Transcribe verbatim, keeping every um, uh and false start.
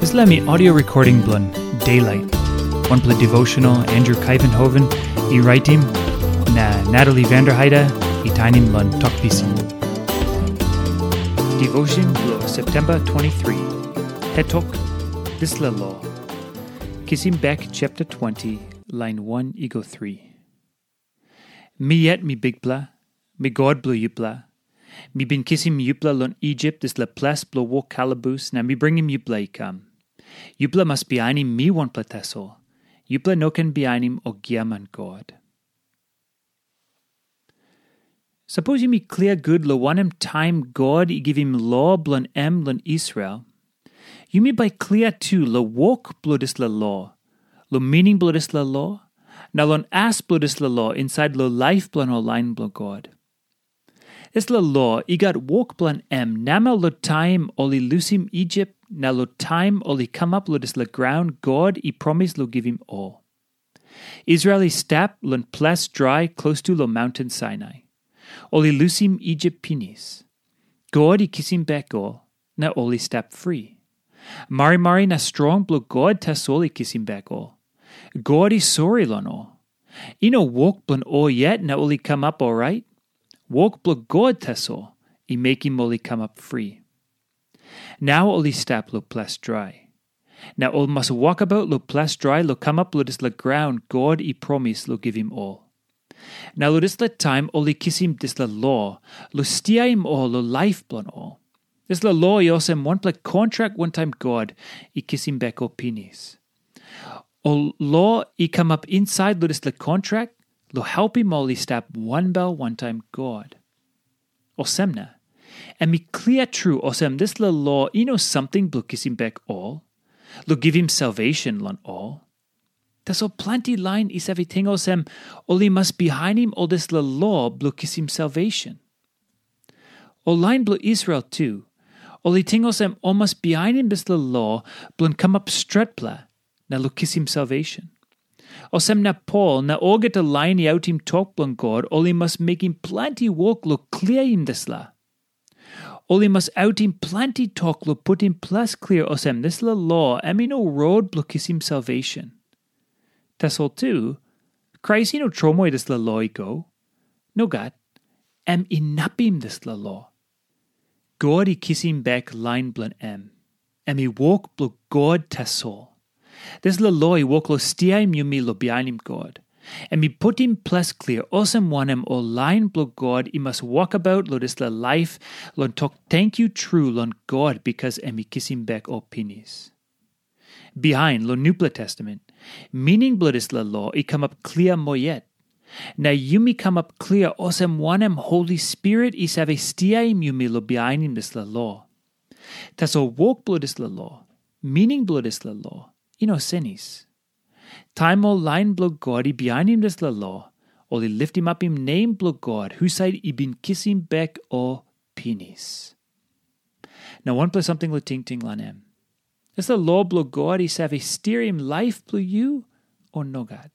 Dispela mi audio recording bilong Daylight, wanpela devotional Andrew Kaivenhoven i raitim, na Natalie Vanderheide i tainim long Tok Pisin. Devotion bilong September twenty-three. Hetok, dispela lo. Kisim bek chapter twenty, line one i go three. Mi yet mi Bikpela, mi God bilong yupela. Mi bin kisim yupela long Isip, dispela ples bilong wok kalabus, na mi bringim yupela i kam. Yupela mas bihainim mi wanpela tasol. Yupela no ken bihainim ol giaman god. Sapos yumi klia gut long wanem taim God i givim lo bilong em long Israel, yumi bai klia tu long wok bilong dispela lo, long mining bilong dispela lo, na long as bilong dispela lo insait long laip bilong ol lain bilong God. Dispela lo i gat wok bilong em namel long taim ol i lusim Isip na long taim ol i kamap long dispela graun God i promis long givim ol. Israel i stap long ples drai klostu long maunten Sainai. Ol i lusim Isip pinis. God i kisim bek ol, na ol i stap fri. Marimari na strong bilong God tasol i kisim bek ol. God i sori long ol. I no wok bilong ol yet na ol i kamap orait. Wok bilong God tasol i mekim ol i kamap fri. Nau ol i stap long ples drai. Na ol mas wokabaut long ples drai long kamap long dispela graun God i promis long givim ol. Na long dispela taim ol i kisim dispela lo long stiaim ol long laip bilong ol. Dispela lo i olsem wanpela kontrak wantaim God i kisim bek ol pinis. Ol lo i kamap insait long dispela kontrak long helpim ol i stap wanbel wantaim God. Olsem na, em i klia tru olsem dispela lo i no samting bilong kisim bek ol, long givim salvation long ol. Tasol planti lain i save ting olsem ol i mas bihainim ol dispela lo bilong kisim salvation. Ol lain bilong Israel tu, ol i ting olsem ol mas bihainim dispela lo bilong kamap stretpela na long kisim salvation. Olsem na Pol na olgeta lain i autim tok bilong God ol i mas mekim planti wok long kliaim dispela. Ol i mas autim planti tok long putim ples klia olsem dispela lo em i no rot bilong kisim salvation. Tasol tu, Krais i no tromoi dispela lo i go. Nogat, em inapim dispela lo. God i kisim bek lain bilong em. Em i wok bilong God tasol. Dispela lo i wok long stiaim yumi long bihainim God. Em i putim ples klia olsem wanem ol lain bilong God i mas wokabaut long dispela laip long tok tenkyu tru long God bikas em i kisim bek ol pinis. Bihain long Nupela Testamen, mining bilong dispela lo i kamap klia moa yet. Na yumi kamap klia olsem wanem Holi Spirit i save stiaim yumi long bihainim dispela lo. Tasol wok bilong dispela lo, mining bilong dispela lo, i no senis. Taim ol lain bilong God i bihainim dispela lo, ol i litimapim nem bilong God husat i bin kisim bek ol pinis. Na wanpela samting long tingting long em. Dispela lo bilong God i save stiaim laip bilong yu, o nogat?